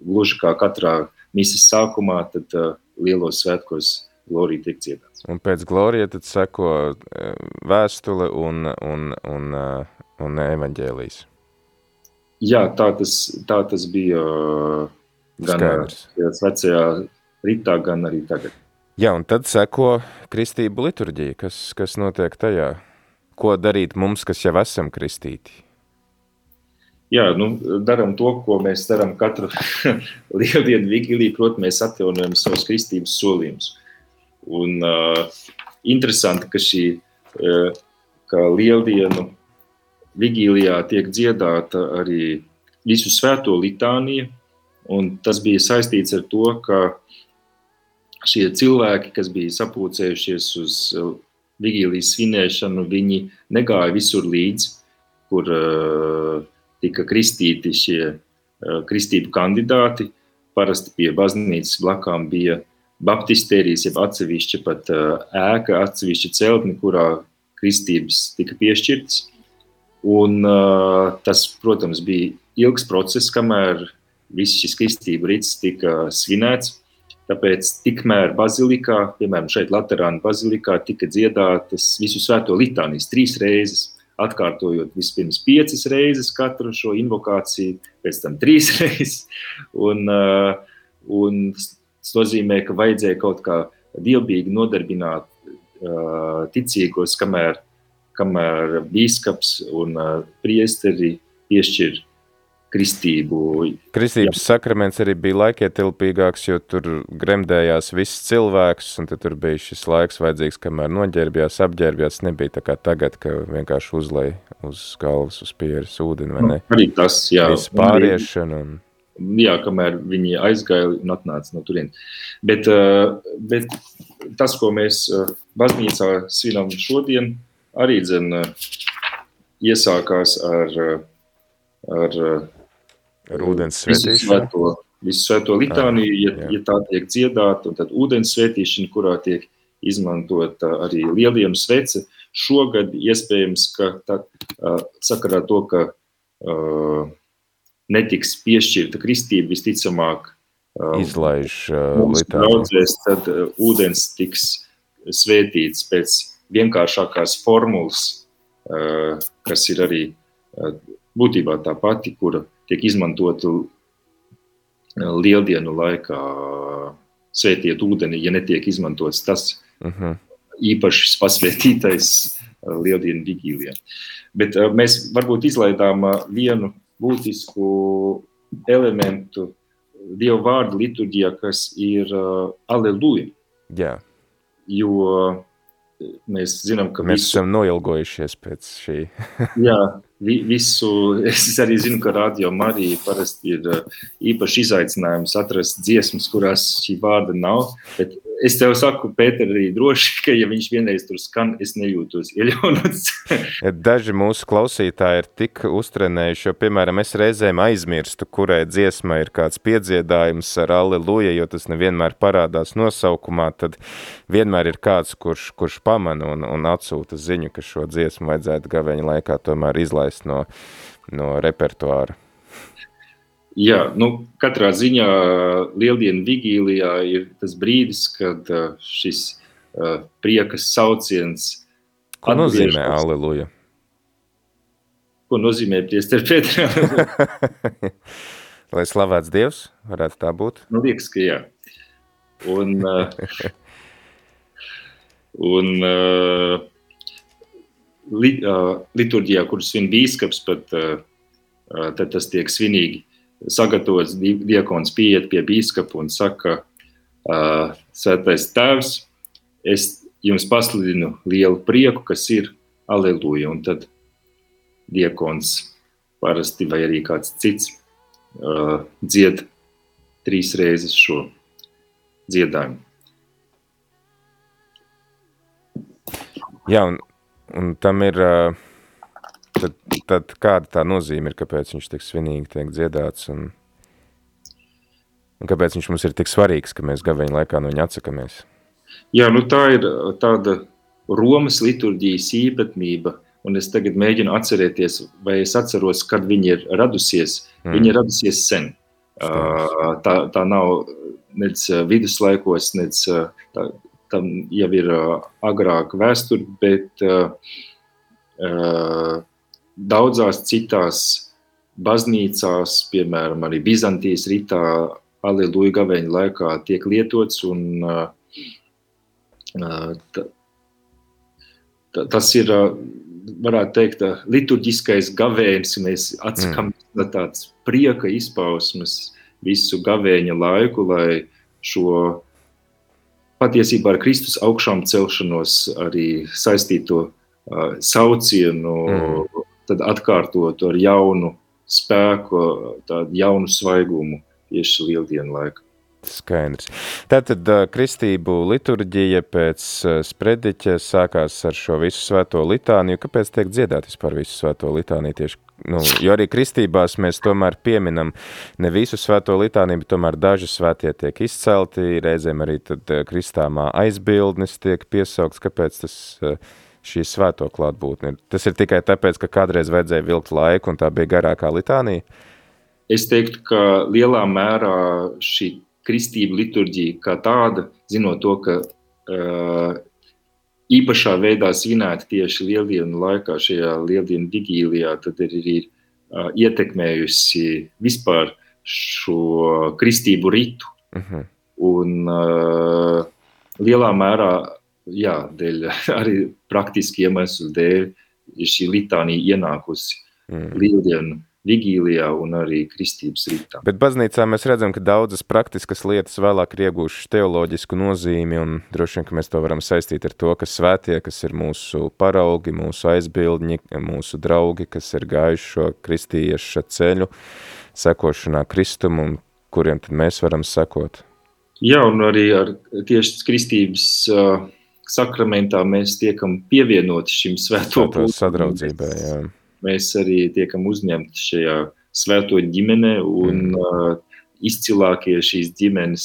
gluži kā katrā mises sākumā, tad lielos svētkos glorija tiek dziedāts. Un pēc glorija tad seko vēstule un evaņģēlijs. Jā, tā tas bija gan vecajā ritā, gan arī tagad. Jā, un tad seko kristību liturģija, kas notiek tajā. Ko darīt mums, kas jau esam kristīti? Jā, daram to, ko mēs daram katru lieldienu vigīliju, proti mēs atjaunojam savus kristības solījumus. Un interesanti, ka lieldienu vigīlijā tiek dziedāta arī visu svēto litānija, un tas bija saistīts ar to, ka šie cilvēki, kas bija sapulcējušies uz vigīlijas svinēšanu, viņi negāja visur līdz, kur tika kristīti šie kristību kandidāti. Parasti pie baznīcas blakām bija baptistērijas, jeb atsevišķa pat ēka, atsevišķa celtne, kurā kristības tika piešķirtas. Un tas, protams, bija ilgs process, kamēr viss šis kristību rits tika svinēts. Tāpēc tikmēr bazilikā, piemēram šeit Laterāna bazilikā, tika dziedātas visu svēto litānijas 3 reizes, atkārtojot vispirms 5 reizes katru šo invokāciju, pēc tam 3 reizes. Un tas nozīmē, ka vajadzēja kaut kā dievbīgi nodarbināt ticīgos, kamēr bīskaps un priesteri piešķir kristību. Kristības sakraments arī bija laikietilpīgāks, jo tur gremdējās viss cilvēks, un tad tur bija šis laiks vajadzīgs, kamēr noģērbjās, apģērbjās. Nebija tā kā tagad, ka vienkārši uzlej uz galvas, uz pieres ūdeni, vai ne? Arī tas, jā. Viss pāriešana. Jā, kamēr viņi aizgāja un atnāca no turien. Bet tas, ko mēs baznīcā svinam šodien, arī iesākās ar ūdens svētīšanu. Visu svēto litāniju, ja tā tiek dziedāta, un tad ūdens svētīšana, kurā tiek izmantota arī lieldienu svece. Šogad iespējams, ka sakarā to, ka netiks piešķirta kristība, visticamāk izlaiž mums draudzēs, tad ūdens tiks svētīts pēc vienkāršākās formulas, kas ir arī būtībā tā pati, kura tiek izmantota lieldienu laikā svētiet ūdeni, ja netiek izmantots tas īpaši pasvētītais lieldienu vigīlijā. Bet mēs varbūt izlaidām vienu būtisku elementu Dievu vārdu liturģijā, kas ir Aleluja. Jā. Jo mēs zinām, ka mēs esam noilgojušies pēc šī. Jā, visu, es arī zinu, ka Radio Marija parasti ir īpaši izaicinājums atrast dziesmas, kurās šī vārda nav, bet es tev saku, Pēter, arī droši, ka ja viņš vienreiz tur skan, es nejūtos ieļaunots. Daži mūsu klausītāji ir tik uztrenējuši, jo, piemēram, es reizēm aizmirstu, kurai dziesmai ir kāds piedziedājums ar Aleluja, jo tas nevienmēr parādās nosaukumā, tad vienmēr ir kāds, kurš pamana un atsūta ziņu, ka šo dziesmu vajadzētu gaveņa laikā tomēr izlaist no repertuāra. Jā, katrā ziņā lieldienu vigīlijā ir tas brīdis, kad šis priekas sauciens Ko nozīmē Aleluja? Ko nozīmē priester Pēter? Lai slavēts Dievs, varētu tā būt? Liekas, ka jā. Un liturģijā, kur svin bīskaps, tad tas tiek svinīgi sagatavots, diakons pieiet pie bīskapa un saka, Svētais Tēvs, es jums pasludinu lielu prieku, kas ir Aleluja. Un tad diakons parasti vai arī kāds cits dzied 3 reizes šo dziedājumu. Jā, un tam ir, tad kāda tā nozīme ir, kāpēc viņš tik svinīgi tiek dziedāts, un kāpēc viņš mums ir tik svarīgs, ka mēs gaveņu laikā no viņa atsakamies? Jā, tā ir tāda Romas liturģijas īpatnība, un es tagad mēģinu atcerēties, vai es atceros, kad viņa ir radusies. Viņa ir radusies sen. Tā nav nec viduslaikos, nec tam jau ir agrāk vēsture, bet daudzās citās baznīcās, piemēram, arī Bizantijas ritā, Aleluja gaveņa laikā tiek lietots, un tas ir, varētu teikt, liturģiskais gavēnis, mēs atsakamies no tāds prieka izpausmes visu gavēņa laiku, lai šo patiesībā ar Kristus augšām celšanos arī saistīto saucienu, tad atkārtotu ar jaunu spēku, tādu jaunu svaigumu tieši lieldienu laiku. Skaidrs. Tātad kristību liturģija pēc sprediķa sākās ar šo visu svēto litāniju. Kāpēc tiek dziedāt vispār visu svēto litāniju tieši? Jo arī kristībās mēs tomēr pieminam ne visu svēto litāniju, bet tomēr daži svētie tiek izcelti, reizēm arī tad kristāmā aizbildnis tiek piesaukts. Kāpēc tas šī svēto klātbūtne? Tas ir tikai tāpēc, ka kādreiz vajadzēja vilkt laiku un tā bija garākā litānija? Es teiktu, ka lielā mērā šī kristība liturģija kā tāda, zinot to, ka īpašā veidā svinēta tieši lieldienu laikā, šajā lieldienu vigīlijā, tad ir ietekmējusi vispār šo kristību ritu. Un lielā mērā, jā, dēļ arī praktiski iemeslu dēļ ir šī litānija ienākusi lieldienu vigīlijā un arī kristības ritā. Bet baznīcā mēs redzam, ka daudzas praktiskas lietas vēlāk ir iegūšas teoloģisku nozīmi, un droši vien, ka mēs to varam saistīt ar to, ka svētie, kas ir mūsu paraugi, mūsu aizbildņi, mūsu draugi, kas ir gājuši šo kristieša ceļu, sekošanā Kristumu, un kuriem tad mēs varam sekot. Jā, un arī ar tieši kristības sakramentā mēs tiekam pievienoti šim svēto sadraudzībai, jā. Mēs arī tiekam uzņemti šajā svēto ģimenē, un izcilākie šīs ģimenes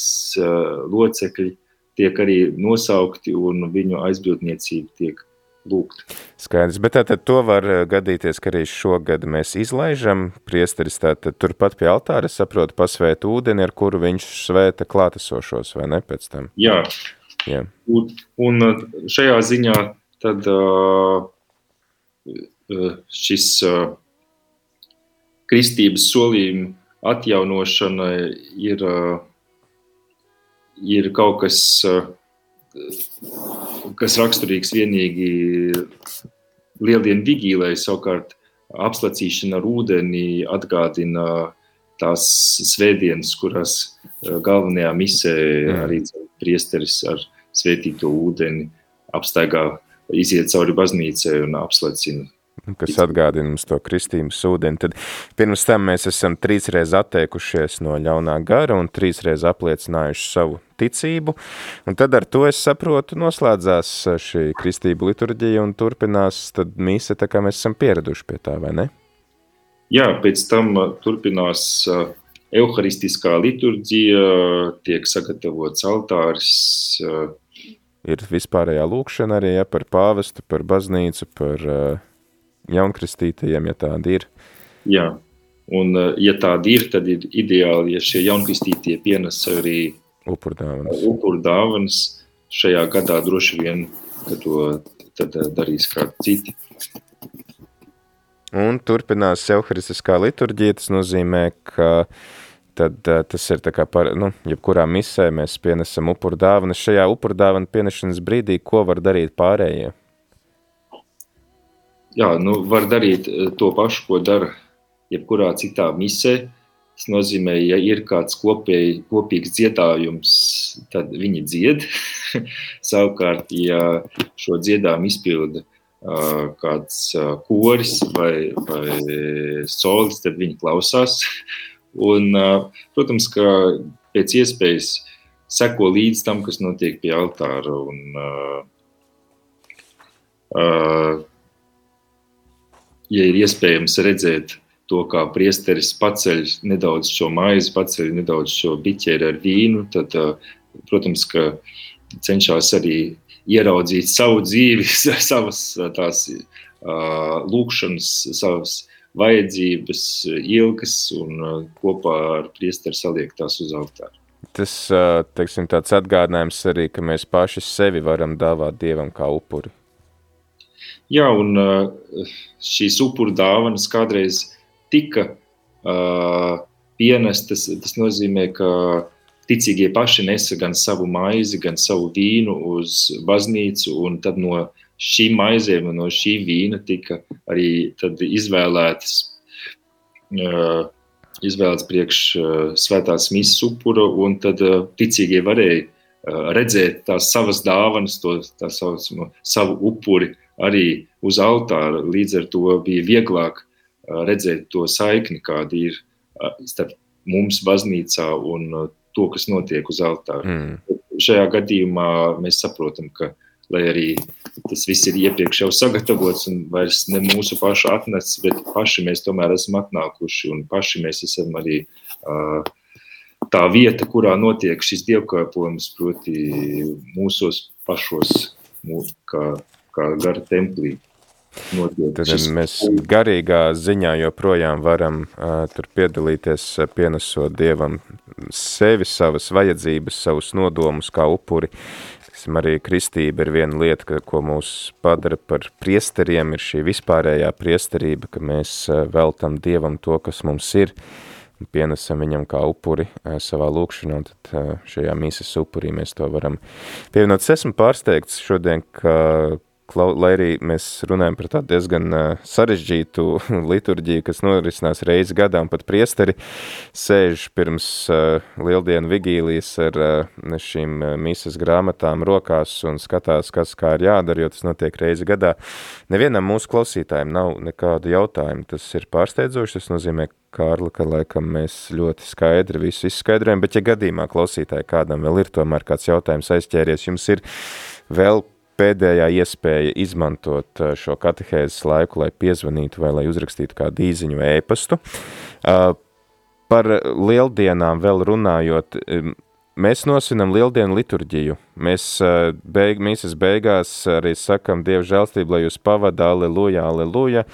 locekļi tiek arī nosaukti, un viņu aizbildniecība tiek lūgta. Skaidrs, bet tātad to var gadīties, ka arī šogad mēs izlaižam priesteris tātad turpat pie altāra, saprotu, pasvēt ūdeni, ar kuru viņš svēta klātesošos, vai ne, pēc tam? Jā. Un šajā ziņā tad šis kristības solījuma atjaunošana ir kaut kas, kas raksturīgs vienīgi lieldienu vigīlai, savukārt apslacīšana ar ūdeni atgādina tās svētdienas, kurās galvenajā misē arī priesteris ar svētīto ūdeni apstaigā, iziet cauri baznīcai un apslacina. Kas atgādina mums to kristības ūdeni. Tad pirms tam mēs esam 3 reizes atteikušies no ļaunā gara un 3 reizes apliecinājuši savu ticību. Un tad ar to, es saprotu, noslēdzās šī kristību liturģija un turpinās tad mise, tā kā mēs esam pieraduši pie tā, vai ne? Jā, pēc tam turpinās euharistiskā liturģija, tiek sagatavots altāris. Ir vispārējā lūkšana arī, ja, par pāvestu, par baznīcu, par jaunkristītajiem, ja tādi ir. Jā, un ja tādi ir, tad ir ideāli, ja šie jaunkristītie pienes arī upurdāvanas. Šajā gadā droši vien, ka to tad darīs kādi citi. Un turpinās euharistiskā liturģija, tas nozīmē, ka tad tas ir tā kā jebkurā misē mēs pienesam upuru dāvanas. Šajā upuru dāvanu pienešanas brīdī, ko var darīt pārējie? Jā, var darīt to pašu, ko dara jebkurā citā misē. Tas nozīmē, ja ir kāds kopīgs dziedājums, tad viņi dzied. Savukārt, ja šo dziedājumu izpilda kāds koris vai solis, tad viņi klausās. Un, protams, ka pēc iespējas seko līdz tam, kas notiek pie altāra. Un, ja ir iespējams redzēt to, kā priesteris paceļ nedaudz šo maizi, paceļ nedaudz šo biķeri ar vīnu, tad, protams, ka cenšas arī ieraudzīt savu dzīvi, savas tās lūkšanas, savas vajadzības, ilgas un kopā ar priesteri saliek tās uz altāru. Tas, teiksim, tāds atgādinājums arī, ka mēs paši sevi varam dāvāt Dievam kā upuri. Jā, un šīs upuru dāvanas kādreiz tika pienestas, tas nozīmē, ka ticīgie paši nesa gan savu maizi, gan savu vīnu uz baznīcu, un tad no šīm maizēm un no šī vīna tika arī tad izvēlēts priekš svētās misas upura, un tad ticīgie varēja redzēt tās savas dāvanas, savu upuri arī uz altāra. Līdz ar to bija vieglāk redzēt to saikni, kāda ir starp mums baznīcā un to, kas notiek uz altāra. Šajā gadījumā mēs saprotam, ka, lai arī tas viss ir iepriekš jau sagatavots un vairs ne mūsu pašu atnests, bet paši mēs tomēr esam atnākuši un paši mēs esam arī tā vieta, kurā notiek šis dievkalpojums, proti mūsos pašos, kā gara templī. Tad mēs garīgā ziņā joprojām varam tur piedalīties, pienesot Dievam sevi, savas vajadzības, savus nodomus kā upuri. Arī kristība ir viena lieta, ko mūs padara par priesteriem, ir šī vispārējā priesterība, ka mēs veltam Dievam to, kas mums ir, un pienesam viņam kā upuri savā lūkšanā, un tad šajā mīsas upurī mēs to varam pievienot. Es esmu pārsteigts šodien, ka lai arī mēs runājam par tādu diezgan sarežģītu liturģiju, kas norisinās reizi gadā, un pat priesteri sēž pirms lieldienu vigīlijas ar šīm misas grāmatām rokās un skatās, kas kā ir jādara, jo tas notiek reizi gadā. Nevienam mūsu klausītājiem nav nekādu jautājumu. Tas ir pārsteidzoši, tas nozīmē, Kārli, ka laikam mēs ļoti skaidri visu izskaidrojam, bet ja gadījumā klausītāji kādam vēl ir tomēr kāds jautājums aizķēries, jums ir vēl pēdējā iespēja izmantot šo katehēzes laiku, lai piezvanītu vai lai uzrakstītu kādu īziņu vai ēpastu. Par lieldienām vēl runājot, mēs nosvinam lieldienu liturģiju. Mēs mīsas beigās arī sakam Dieva žēlstību, lai jūs pavada, aleluja, aleluja,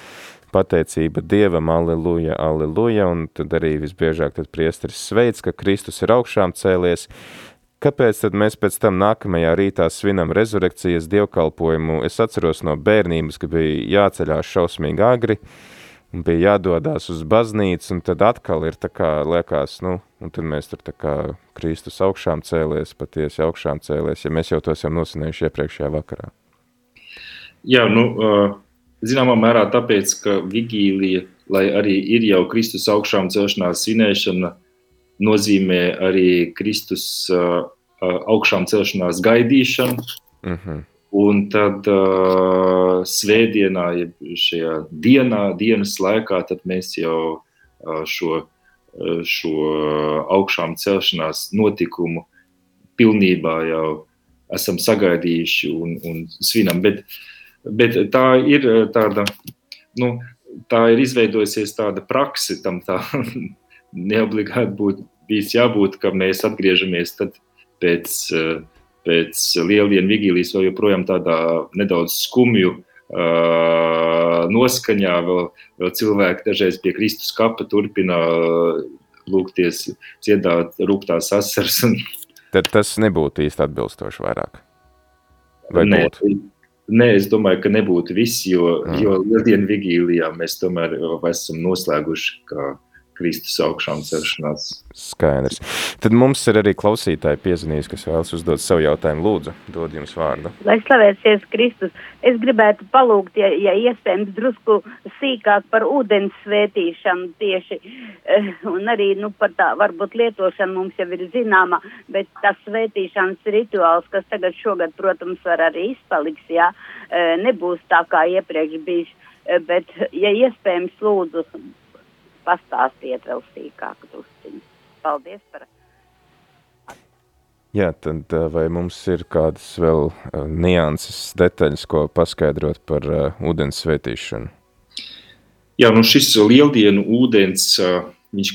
pateicība Dievam, aleluja, aleluja, un tad arī visbiežāk tad priesteris sveic, ka Kristus ir augšām cēlies. Kāpēc tad mēs pēc tam nākamajā rītā svinam rezurekcijas dievkalpojumu? Es atceros no bērnības, ka bija jāceļās šausmīgi agri, un bija jādodās uz baznīcu, un tad atkal ir tā kā liekas, un tad mēs tur tā kā Kristus augšām cēlies, patiesi augšām cēlies, ja mēs jau to esam nosvinējuši iepriekšējā vakarā. Jā, zināmā mērā tāpēc, ka vigīlija, lai arī ir jau Kristus augšām celšanās svinēšana, nozīmē arī Kristus augšām celšanās gaidīšanu, un tad svētdienā, šajā dienas laikā, tad mēs jau šo augšām celšanās notikumu pilnībā jau esam sagaidījuši un svinam, bet tā ir tāda, tā ir izveidojusies tāda prakse, tam tā neobligāti būtu bijis jābūt, ka mēs atgriežamies tad pēc lieldienu vigīlijas vēl joprojām tādā nedaudz skumju noskaņā, vēl cilvēki dažreiz pie Kristus kapa turpina lūgties, dziedāt rūgtās asaras. Tad tas nebūtu īsti atbilstoši vairāk? Vai būtu? Nē, es domāju, ka nebūtu viss, jo lieldienu vigīlijā mēs tomēr esam noslēguši, ka Kristus augšām celšanās. Skaidrs. Tad mums ir arī klausītāji piezvanījis, kas vēlas uzdot savu jautājumu. Lūdzu, dod jums vārdu. Lai slavēsies Kristus. Es gribētu palūgt, ja iespējams, drusku sīkāk par ūdens svētīšanu tieši, un arī, par tā, varbūt lietošana mums jau ir zināma, bet tas svētīšanas rituāls, kas tagad šogad, protams, var arī izpaliks, nebūs tā kā iepriekš bijis, bet, ja iespējams, lūdzu, pastāstiet vēl sīkāk drusciņu. Paldies par... Jā, tad vai mums ir kādas vēl nianses, detaļas, ko paskaidrot par ūdens svētīšanu? Jā, šis lieldienu ūdens, viņš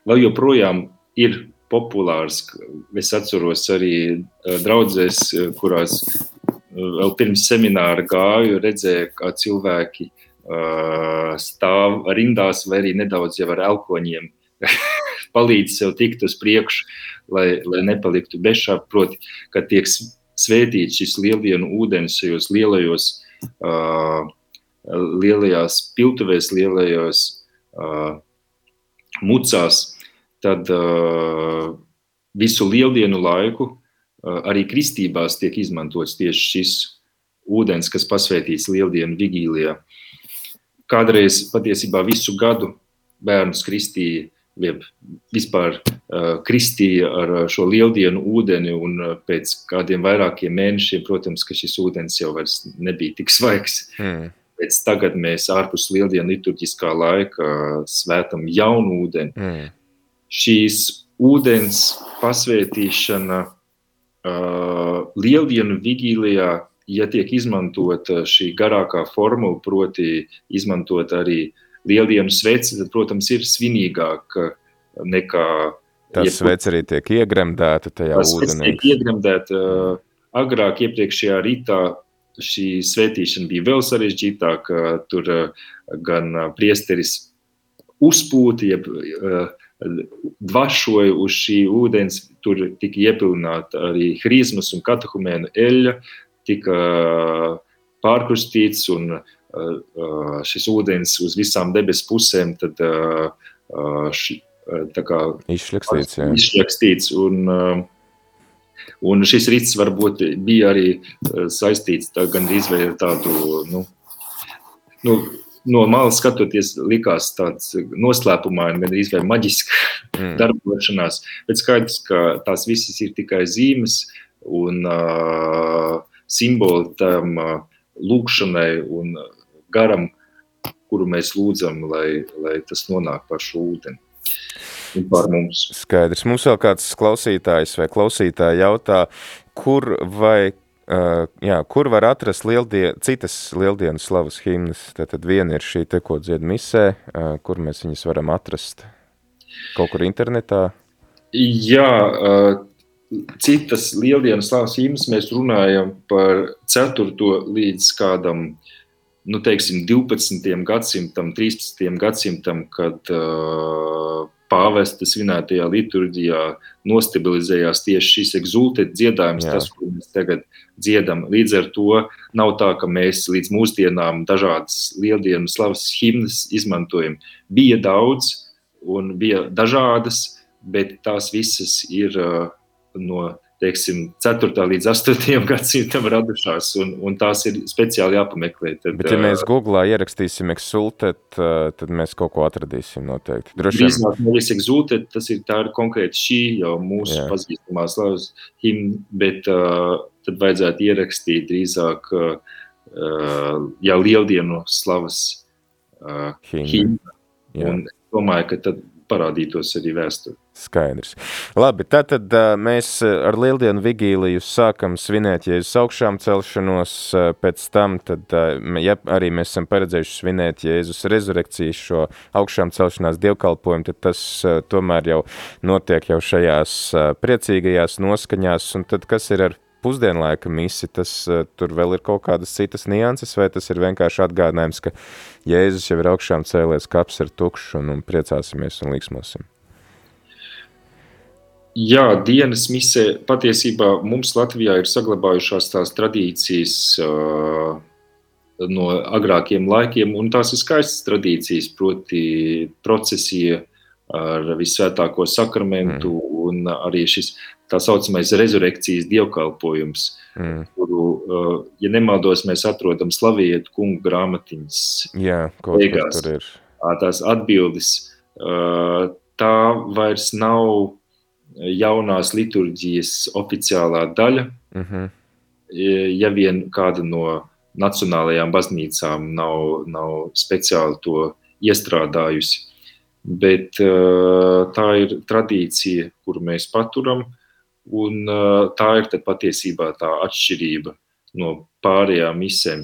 vēl joprojām ir populārs. Es atceros arī draudzēs, kurās vēl pirms semināra gāju, redzēju, kā cilvēki stāv rindās vai arī nedaudz jau ar elkoņiem palīdz sev tikt uz priekšu, lai nepaliktu bešā, proti, kad tiek svētīts šis lieldienu ūdens šajos lielajās piltuvēs, lielajos mucās, tad visu lieldienu laiku arī kristībās tiek izmantots tieši šis ūdens, kas pasvētīts lieldienu vigīlijā. Kādreiz patiesībā visu gadu bērnus kristīja, vispār kristīja ar šo lieldienu ūdeni, un pēc kādiem vairākiem mēnešiem, protams, ka šis ūdens jau vairs nebija tik svaigs. Pēc tagad mēs ārpus lieldienu liturģiskā laika svētam jaunu ūdeni. Šīs ūdens pasvētīšana lieldienu vigīlijā, ja tiek izmantot šī garākā formula, proti izmantot arī lieldienu sveci, tad, protams, ir svinīgāk nekā... Tas sveci arī tiek iegremdēta tajā ūdenī. Tas tiek iegremdēta. Agrāk iepriekšējā rītā šī svētīšana bija vēl sarežģītāka. Tur gan priesteris uzpūta, jeb dvašoja uz šī ūdens, tur tika iepilnāta arī hrizmas un katehumēnu eļļa, tika pārkrustīts un šis ūdens uz visām debes pusēm tad tā kā izšļakstīts un šis rits varbūt bija arī saistīts gandrīz vai ar tādu, no malas skatoties likās tāds noslēpumaini, gandrīz vai maģiska darbošanās, bet skaidrs, ka tās visas ir tikai zīmes un simboli tam lūkšanai un garam, kuru mēs lūdzam, lai tas nonāk par šo ūdeni un par mums. Skaidrs. Mums vēl kāds klausītājs vai klausītāja jautā, kur var atrast citas lieldienu slavas himnas? Tātad viena ir šī te, ko dzied misē, kur mēs viņas varam atrast? Kaut kur internetā? Jā, citas lieldienu slavas himnas mēs runājam par 4. līdz kādam 12. gadsimtam, 13. gadsimtam, kad pāvesta svinētajā liturģijā nostabilizējās tieši šis exultet dziedājums, tas, ko mēs tagad dziedam. Līdz ar to nav tā, ka mēs līdz mūsdienām dažādas lieldienu slavas himnas izmantojam. Bija daudz un bija dažādas, bet tās visas ir no 4. līdz 8. gadsimtam radušās, un tās ir speciāli jāpameklē. Bet ja mēs Googlā ierakstīsim exultet, tad mēs kaut ko atradīsim noteikti. Drīzāk nevis exultet, tā ir konkrēti šī jau mūsu pazīstamā slavas himna, bet tad vajadzētu ierakstīt drīzāk jau lieldienu slavas himna. Un domāju, ka tad parādītos arī vēsturi. Skaidrs. Labi, tātad mēs ar lieldienu vigīliju sākam svinēt Jēzus augšām celšanos, pēc tam, tad, ja arī mēs esam paredzējuši svinēt Jēzus rezurekcijas šo augšām celšanās dievkalpojumu, tad tas tomēr jau notiek jau šajās priecīgajās noskaņās, un tad kas ir ar pusdienlaika misi, tur vēl ir kaut kādas citas nianses, vai tas ir vienkārši atgādinājums, ka Jēzus jau ir augšām cēlies, kaps ir tukšs un priecāsimies un līksmosim? Jā, dienas misē patiesībā mums Latvijā ir saglabājušās tās tradīcijas no agrākiem laikiem, un tās ir skaistas tradīcijas, proti procesija ar visvētāko sakramentu un arī šis tā saucamais rezurekcijas dievkalpojums, kuru, ja nemaldos, mēs atrodam Slavietu kungu grāmatiņas. Jā, kaut kas tur ir. Tās atbildes, tā vairs nav jaunās liturģijas oficiālā daļa, ja vien kāda no nacionālajām baznīcām nav speciāli to iestrādājusi. Bet tā ir tradīcija, kuru mēs paturam, un tā ir tad patiesībā tā atšķirība no pārējām misēm.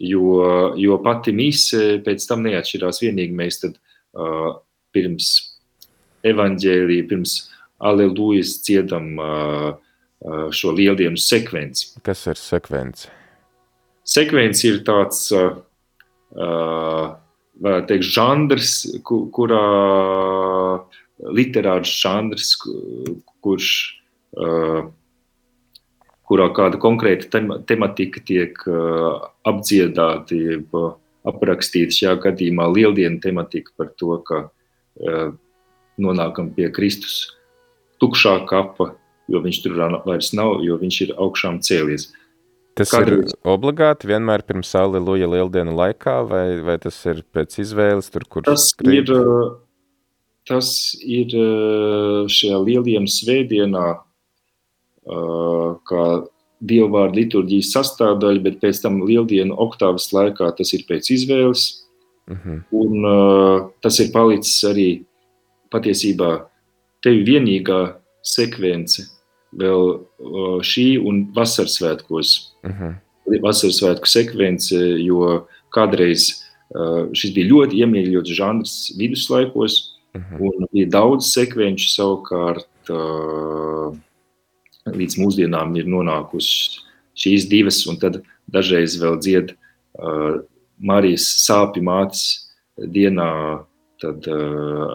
Jo pati mise pēc tam neatšķirās, vienīgi mēs tad pirms evaņģēlija, pirms Alelujas dziedam šo lieldienu sekvenci. Kas ir sekvence? Sekvence ir tāds, varētu teikt, žandrs, kurā literārs žandrs, kurā kāda konkrēta tematika tiek apdziedāta, aprakstīta, šajā gadījumā lieldienu tematika par to, ka nonākam pie Kristus tukšā kapa, jo viņš tur vairs nav, jo viņš ir augšām cēlies. Tas ir obligāti vienmēr pirms Aleluja lieldienu laikā, vai tas ir pēc izvēles, tur, kur skrīt? Tas ir šajā lieldienu svētdienā, kā dievvvārdu liturģijas sastāvdaļa, bet pēc tam lieldienu oktāvas laikā tas ir pēc izvēles. Un tas ir palicis arī patiesībā tevi vienīgā sekvence vēl šī un vasarsvētkos. Vasarsvētku sekvence, jo kādreiz šis bija ļoti iemīļots žanrs viduslaikos, un bija daudz sekvenču, savukārt līdz mūsdienām ir nonākusi šīs divas, un tad dažreiz vēl dzied Marijas sāpju mātes dienā, tad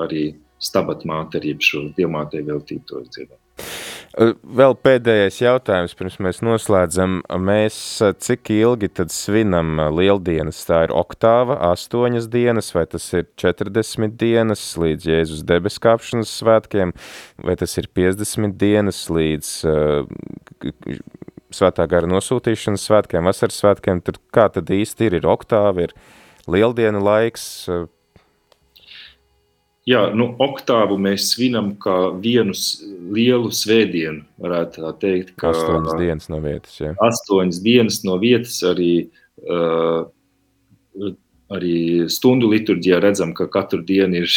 arī Stabat māte arī šo dievmātei veltītos dziedam. Vēl pēdējais jautājums, pirms mēs noslēdzam. Mēs cik ilgi tad svinam lieldienas? Tā ir oktāva, 8 dienas, vai tas ir 40 dienas līdz Jēzus debeskāpšanas svētkiem, vai tas ir 50 dienas līdz svētā gara nosūtīšanas svētkiem, vasaras svētkiem? Tur kā tad īsti ir oktāva, ir lieldienu laiks? Jā, oktāvu mēs svinam kā vienu lielu svētdienu, varētu tā teikt. 8 dienas no vietas, jā. 8 dienas no vietas, arī stundu liturģijā redzam, ka katru dienu ir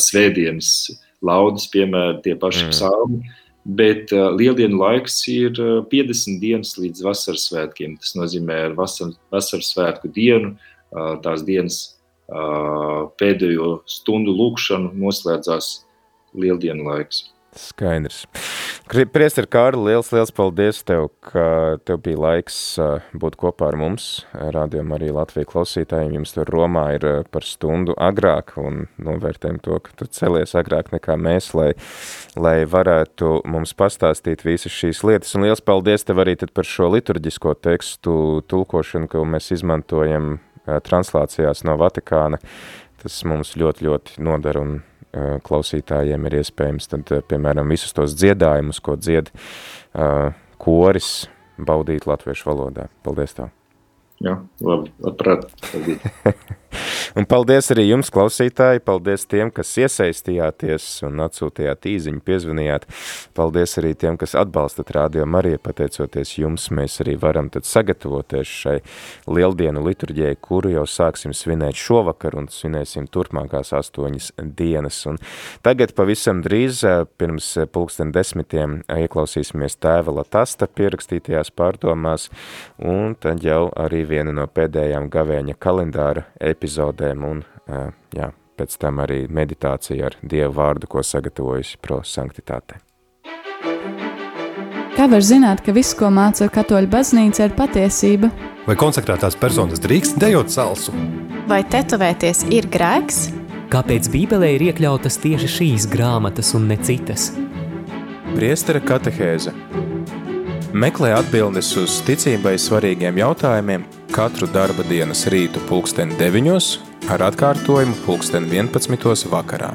svētdienas laudas, piemēram, tie paši psalmi, bet lieldienu laiks ir 50 dienas līdz vasaras svētkiem. Tas nozīmē ar vasaras svētku dienu, tās dienas pēdējo stundu lūkšanu noslēdzās lieldienu laiks. Skaidrs. Priester Kārli, liels paldies tev, ka tev bija laiks būt kopā ar mums. Rādījumā arī Latvijas klausītājiem jums tur Romā ir par stundu agrāk un novērtējam to, ka tu celies agrāk nekā mēs, lai varētu mums pastāstīt visas šīs lietas. Un liels paldies tev arī tad par šo liturģisko tekstu tulkošanu, ko mēs izmantojam translācijās no Vatikāna. Tas mums ļoti, ļoti nodara un klausītājiem ir iespējams tad, piemēram, visus tos dziedājumus, ko dzied koris, baudīt latviešu valodā. Paldies tev! Jā, labi, labprāt. Un paldies arī jums, klausītāji, paldies tiem, kas iesaistījāties un atsūtījāt īziņu, piezvanījāt. Paldies arī tiem, kas atbalstat Rādio Mariju, pateicoties jums, mēs arī varam tad sagatavoties šai lieldienu liturģijai, kuru jau sāksim svinēt šovakar un svinēsim turpmākās 8 dienas. Un tagad pavisam drīz, pirms 10:00, ieklausīsimies Tēva Latasta pierakstītajās pārdomās, un tad jau arī viena no pēdējām gavēņa kalendāra epizodēm un, pēc tam arī meditācija ar Dievu vārdu, ko sagatavojusi Pro Sanctitāte. Kā var zināt, ka viss, ko māca Katoļu baznīca, ir patiesība? Vai konsekrētās personas drīkst dejot salsu? Vai tetovēties ir grēks? Kāpēc Bībelē ir iekļautas tieši šīs grāmatas un ne citas? Priestera katehēze. Meklē atbildes uz ticībai svarīgiem jautājumiem katru darba dienas rītu 9:00 ar atkārtojumu 11. vakarā.